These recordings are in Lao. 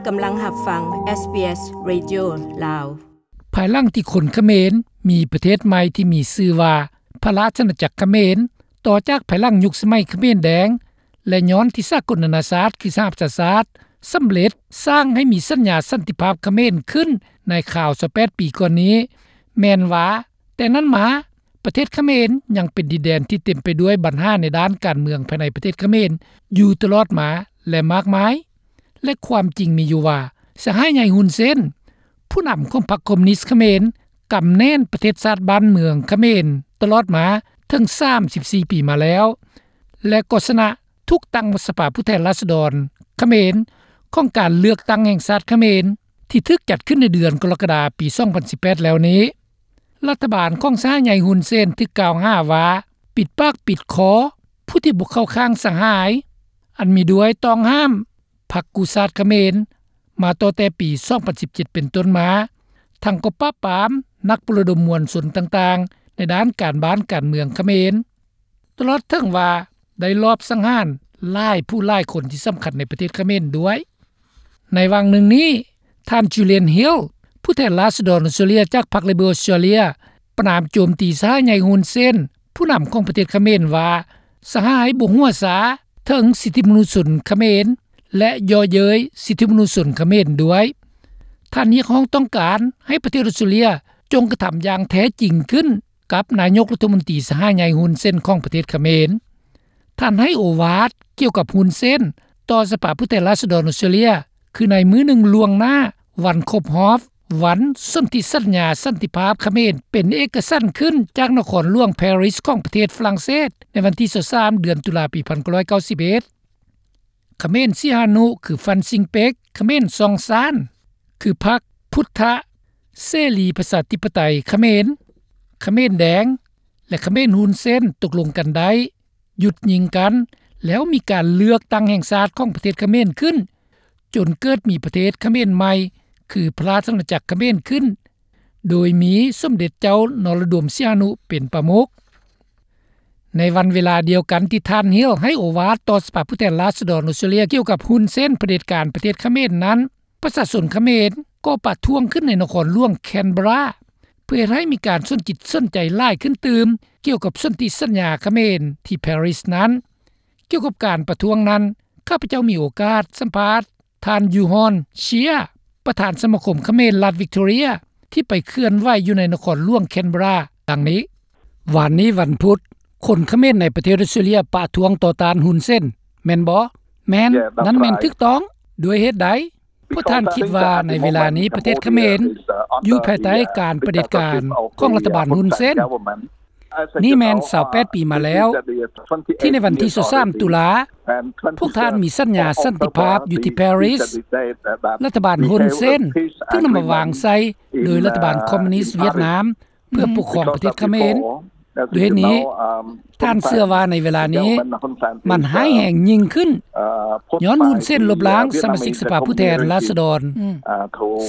ກຳລັງຮັບຟັງ ເອສບີເອສ ເຣດິໂອ ລາວ. ພາຍຫຼັງທີ່ຄົນຂະເໝນມີປະເທດໃໝ່ທີ່ມີຊື່ວ່າ ພະລາຊະອານາຈັກຂະເໝນ ຕໍ່ຈາກພາຍຫຼັງຍຸກສະໄໝຂະເໝນແດງ ແລະ ຍ້ອນທີ່ສາກົນນານາຊາດ ຄືສະຫະປະຊາຊາດ ສຳເລັດສ້າງໃຫ້ມີສັນຍາສັນຕິພາບຂະເໝນຂຶ້ນໃນຄາວຊາວແປດປີກ່ອນນີ້ ແມ່ນວ່າ ແຕ່ນັ້ນມາ ປະເທດຂະເໝນຍັງເປັນດິນແດນທີ່ເຕັມໄປດ້ວຍບັນຫາໃນດ້ານການເມືອງພາຍໃນປະເທດຂະເໝນຢູ່ຕະຫຼອດມາ ແລະ ມາກມາຍ. ແລະ ຄວາມຈິງມີຢູ່ວ່າ ສະຫາຍໃຫຍ່ ຮຸນເຊນ ຜູ້ນຳຂອງພັກຄອມມູນິດຂະເໝນ ກຳແໜ້ນປະເທດຊາດບ້ານເມືອງຂະເໝນຕະຫຼອດມາເຖິງສາມສິບສີ່ປີມາແລ້ວ ແລະ ກໍຊະນະ ຖືກຕັ້ງສະພາຜູ້ແທນລາຊະດອນຂະເໝນ ຂອງການເລືອກຕັ້ງແຫ່ງຊາດຂະເໝນ ທີ່ຖືກຈັດຂຶ້ນໃນເດືອນກໍລະກະດາ ປີສອງພັນສິບແປດແລ້ວນີ້. ລັດຖະບານຂອງສະຫາຍໃຫຍ່ຮຸນເຊນ ຖືກກ່າວຫາວ່າ ປິດປາກປິດຄໍ ຜູ້ທີ່ບໍ່ເຂົ້າຂ້າງສະຫາຍ ອັນມີດ້ວຍຕ້ອງຫ້າມພັກກູ້ຊາດຂະເໝນ ມາຕັ້ງແຕ່ປີສອງພັນສິບເຈັດເປັນຕົ້ນມາ, ທັງກໍປາບປາມນັກປະລະດົມມວນຊົນຕ່າງໆ ໃນດ້ານການບ້ານການເມືອງຂະເໝນ, ຕະຫຼອດເຖິງວ່າໄດ້ລອບສັງຫານຫຼາຍຜູ້ຫຼາຍຄົນທີ່ສຳຄັນໃນປະເທດຂະເໝນດ້ວຍ. ໃນຫວ່າງໜຶ່ງນີ້, ທ່ານ Julian Hill ຜູ້ແທນລາຊະດອນອອສເຕຣເລັຽຈາກພັກ Labor ອອສເຕຣເລັຽ ປະນາມໂຈມຕີສະຫາຍໃຫຍ່ຮຸນເຊນ ຜູ້ນຳຂອງປະເທດຂະເໝນວ່າ ສະຫາຍບໍ່ຫົວຊາເຖິງສິດທິມະນຸດຊົນຂະເໝນ ແລະ ເຍາະເຍີ້ຍສິດທິມະນຸດຊົນຂະເໝນດ້ວຍ. ທ່ານຮຽກຮ້ອງຕ້ອງການໃຫ້ປະເທດອອສເຕຣເລັຽ ຈົ່ງກະທຳຢ່າງແທ້ຈິງຂຶ້ນກັບນາຍົກລັດຖະມົນຕີສະຫາຍໃຫຍ່ຮຸນເຊນຂອງປະເທດຂະເໝນ. ທ່ານໃຫ້ໂອວາດກ່ຽວກັບຮຸນເຊນຕໍ່ສະພາຜູ້ແທນລາຊະດອນອອສເຕຣເລັຽ ຄືໃນມື້ໜຶ່ງລ່ວງໜ້າວັນຄົບຮອບວັນສົນທິສັນຍາສັນຕິພາບຂະເໝນເປັນເອກະສັນຂຶ້ນຈາກນະຄອນຫຼວງ Paris ຂອງປະເທດຝຣັ່ງເສດ ໃນວັນທີຊາວສາມ ເດືອນຕຸລາ ປີພັນເກົ້າຮ້ອຍເກົ້າສິບເອັດ. ຂະເໝນສີ່ຫານຸ ຄື ຟານຊິງເປັກ, ຂະເໝນຊອງຊານ ຄືພັກພຸດທະເສລີປະຊາທິປະໄຕຂະເໝນ, ຂະເໝນແດງ ແລະ ຂະເໝນຮຸນເຊນຕົກລົງກັນໄດ້ ຢຸດຍິງກັນ ແລ້ວມີການເລືອກຕັ້ງແຫ່ງຊາດຂອງປະເທດຂະເໝນຂຶ້ນ ຈົນເກີດມີປະເທດຂະເໝນໃໝ່ ຄື ພະລາຊະອານາຈັກຂະເໝນຂຶ້ນ ໂດຍມີສົມເດັດເຈົ້ານໍລະດົມ ສີຫະນຸ ເປັນປະມຸກ. ໃນວັນເວລາດຽວກັນທີ່ທ່ານ Hill ໃຫ້ໂອວາດຕໍ່ສະພາຜູ້ແທນລາຊະດອນອອສເຕຣເລັຽກ່ຽວກັບຮຸນເຊນຜະເດັດການປະເທດຂະເໝນນັ້ນ, ປະຊາຊົນຂະເໝນກໍປະທ້ວງຂຶ້ນໃນນະຄອນຫຼວງ Canberra ເພື່ອເຮັດໃຫ້ມີການສົນຈິດສົນໃຈຫຼາຍຂຶ້ນຕື່ມກ່ຽວກັບສົນທິສັນຍາຂະເໝນທີ່ Paris ນັ້ນ. ກ່ຽວກັບການປະທ້ວງນັ້ນ, ຂ້າພະເຈົ້າມີໂອກາດສຳພາດທ່ານ ຢູຮອນ ເຊຍ ປະທານສະມາຄົມຂະເໝນລັດວິກຕໍເຣຍ ທີ່ໄປເຄື່ອນໄຫວຢູ່ໃນນະຄອນຫຼວງ Canberra ດັ່ງນີ້: ວານນີ້ວັນພຸດ, ຄົນຂະເໝນໃນປະເທດອອສເຕຣເລັຽປະທ້ວງຕໍ່ຕ້ານຮຸນເຊນ ແມ່ນບໍ່? ແມ່ນ, ນັ້ນແມ່ນຖືກຕ້ອງ. ດ້ວຍເຫດໃດ? ພວກທ່ານຄິດວ່າໃນເວລານີ້ປະເທດຂະເໝນຢູ່ພາຍໃຕ້ການປະເດັດການຂອງລັດຖະບານຮຸນເຊນ? ນີ້ແມ່ນຊາວແປດປີມາແລ້ວ ທີ່ໃນວັນທີຊາວສາມຕຸລາ ພວກທ່ານມີສັນຍາສັນຕິພາບຢູ່ທີ່ Paris. ລັດຖະບານຮຸນເຊນຖືກນຳມາວາງໃສ່ໂດຍລັດຖະບານຄອມມູນິດຫວຽດນາມ ເພື່ອປົກຄອງປະເທດຂະເໝນ. ດ້ວຍເຫດນີ້, ທ່ານເຊື່ອວ່າໃນເວລານີ້ມັນຮ້າຍແຮງຍິ່ງຂຶ້ນ ຍ້ອນຮຸນເຊນລົບລ້າງສະມາຊິກສະພາຜູ້ແທນລາຊະດອນ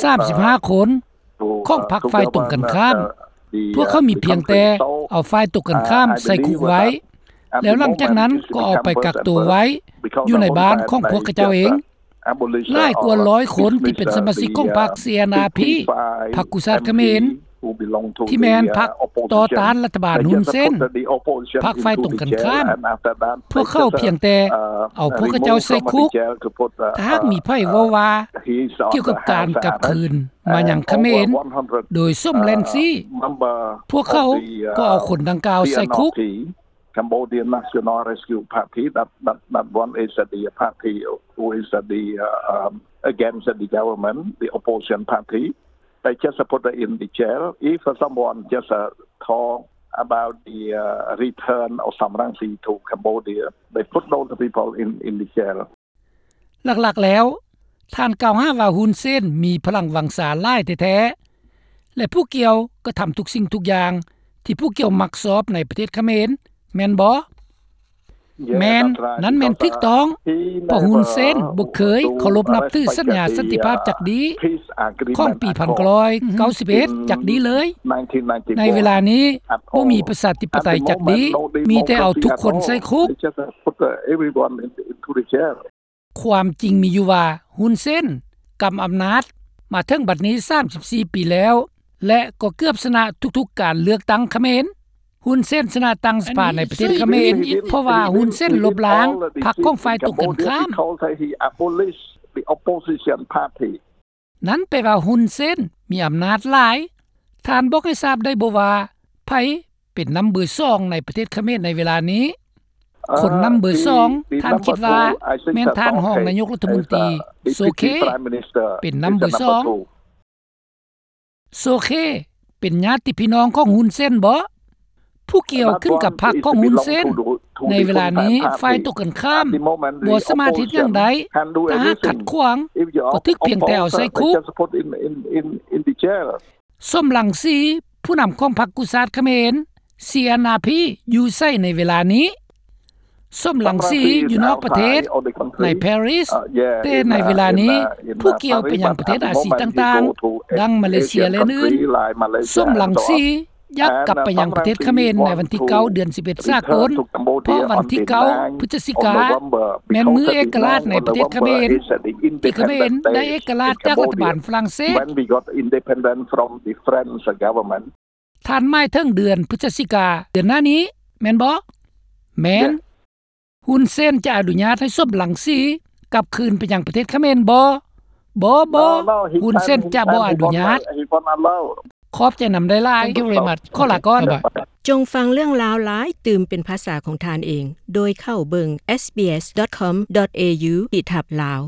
ສາມສິບຫ້າຄົນຂອງພັກຝ່າຍຕົງກັນຂ້າມ. ພວກເຂົາມີພຽງແຕ່ເອົາຝ່າຍຕົງກັນຂ້າມໃສ່ຄຸກໄວ້ ແລ້ວຫຼັງຈາກນັ້ນກໍເອົາໄປກັກໂຕໄວ້ຢູ່ໃນບ້ານຂອງພວກເຂົາເຈົ້າເອງ. ຫຼາຍກວ່າຮ້ອຍຄົນທີ່ເປັນສະມາຊິກຂອງພັກ CNRP ພັກກູ້ຊາດຂະເໝນ ທີ່ແມ່ນພັກຕໍ່ຕ້ານລັດຖະບານຮຸນເຊນ, ພັກຝ່າຍຕົງກັນຂ້າມ, ພວກເຂົາພຽງແຕ່ເອົາພວກເຂົາເຈົ້າໃສ່ຄຸກ. ຖ້າຫາກມີໃຜເວົ້າວ່າກ່ຽວກັບການກັບຄືນມາຍັງຂະເໝນໂດຍສົມແລນຊີ, ພວກເຂົາກໍເອົາຄົນດັ່ງກ່າວໃສ່ຄຸກ. Cambodian National Rescue Party, that, that, that one is the party who is the, uh, um, against the government, the opposition party. They just put in the jail. If someone just, uh, talk about the, uh, return of Sam Rainsy to Cambodia, they put those people in, in the jail. ຫຼັກໆແລ້ວ, ທ່ານກ່າວຫາວ່າຮຸນເຊນມີພະລັງວັງຊາຫຼາຍແທ້ໆ ແລະ ຜູ້ກ່ຽວກໍທຳທຸກສິ່ງທຸກຢ່າງທີ່ຜູ້ກ່ຽວມັກຊອບໃນປະເທດຂະເໝນ, ແມ່ນບໍ່? ແມ່ນ, ນັ້ນແມ່ນຖືກຕ້ອງ, ເພາະຮຸນເຊນບໍ່ເຄີຍເຄົາລົບນັບຖືສັນຍາສັນຕິພາບຈັກດີ້ຂອງປີໜຶ່ງພັນເກົ້າຮ້ອຍເກົ້າສິບເອັດຈັກດີ້ເລີຍ. ໃນເວລານີ້ບໍ່ມີປະຊາທິປະໄຕຈັກດີ້, ມີແຕ່ເອົາທຸກຄົນໃສ່ຄຸກ. ຄວາມຈິງມີຢູ່ວ່າ ຮຸນເຊນ ກຳອຳນາດມາເຖິງບັດນີ້ສາມສິບສີ່ປີແລ້ວ ແລະ ກໍເກືອບຊະນະທຸກໆການເລືອກຕັ້ງຂະເໝນ. ຮຸນເຊນຊະນະຕັ້ງສະພາໃນປະເທດຂະເໝນ ເພາະວ່າຮຸນເຊນລົບລ້າງພັກຂອງຝ່າຍຕົງກັນຂ້າມ. ນັ້ນແປວ່າຮຸນເຊນມີອຳນາດຫຼາຍ. ທ່ານບອກໃຫ້ຊາບໄດ້ບໍ່ວ່າໃຜເປັນນຳເບີສອງໃນປະເທດຂະເໝນໃນເວລານີ້? ຄົນນຳເບີສອງ ທ່ານຄິດວ່າແມ່ນທ່ານຮອງນາຍົກລັດຖະມົນຕີ ໂຊເຄ ເປັນນຳເບີສອງ. ໂຊເຄ ເປັນຍາດຕິພີ່ນ້ອງຂອງຮຸນເຊນບໍ? ຜູ້ກ່ຽວຂຶ້ນກັບພັກຂອງຮຸນເຊນ. ໃນເວລານີ້ ຝ່າຍຕົງກັນຂ້າມບໍ່ສາມາດເຮັດຫຍັງໄດ້. ຖ້າຫາກຂັດຂວາງ ກໍຖືກພຽງແຕ່ເອົາໃສ່ຄຸກ. ສົມລັງສີ ຜູ້ນຳຂອງພັກກູ້ຊາດຂະເໝນ CNRP ຢູ່ໃສໃນເວລານີ້? ສົມລັງສີຢູ່ນອກປະເທດ ໃນ Paris, ແຕ່ໃນເວລານີ້ ຜູ້ກ່ຽວໄປຍັງປະເທດອາຊີຕ່າງໆ ດັ່ງມາເລເຊຍ ແລະ ອື່ນໆ. ສົມລັງສີ ຢາກກັບໄປຍັງປະເທດຂະເໝນໃນວັນທີເກົ້າ ເດືອນສິບເອັດສາກົນ, ເພາະວັນທີເກົ້າ ພຶສຈິກາ ແມ່ນມື້ເອກະລາດໃນປະເທດຂະເໝນ ທີ່ຂະເໝນໄດ້ເອກະລາດຈາກລັດຖະບານຝຣັ່ງເສດ. ທ່ານໝາຍເຖິງເດືອນພຶສຈິກາ ເດືອນໜ້ານີ້ແມ່ນບໍ່? ແມ່ນ. ຮຸນເຊນຈະອະນຸຍາດໃຫ້ສົມລັງສີກັບຄືນໄປຍັງປະເທດຂະເໝນບໍ່? ບໍ່, ບໍ່, ຮຸນເຊນຈະບໍ່ອະນຸຍາດ. ຂອບໃຈນຳຫຼາຍໆ. ຂໍລາກ່ອນ. ຈົ່ງຟັງເລື່ອງລາວຫຼາຍຕື່ມເປັນພາສາຂອງທ່ານເອງ ໂດຍເຂົ້າເບິ່ງ sbs.com.au/lao.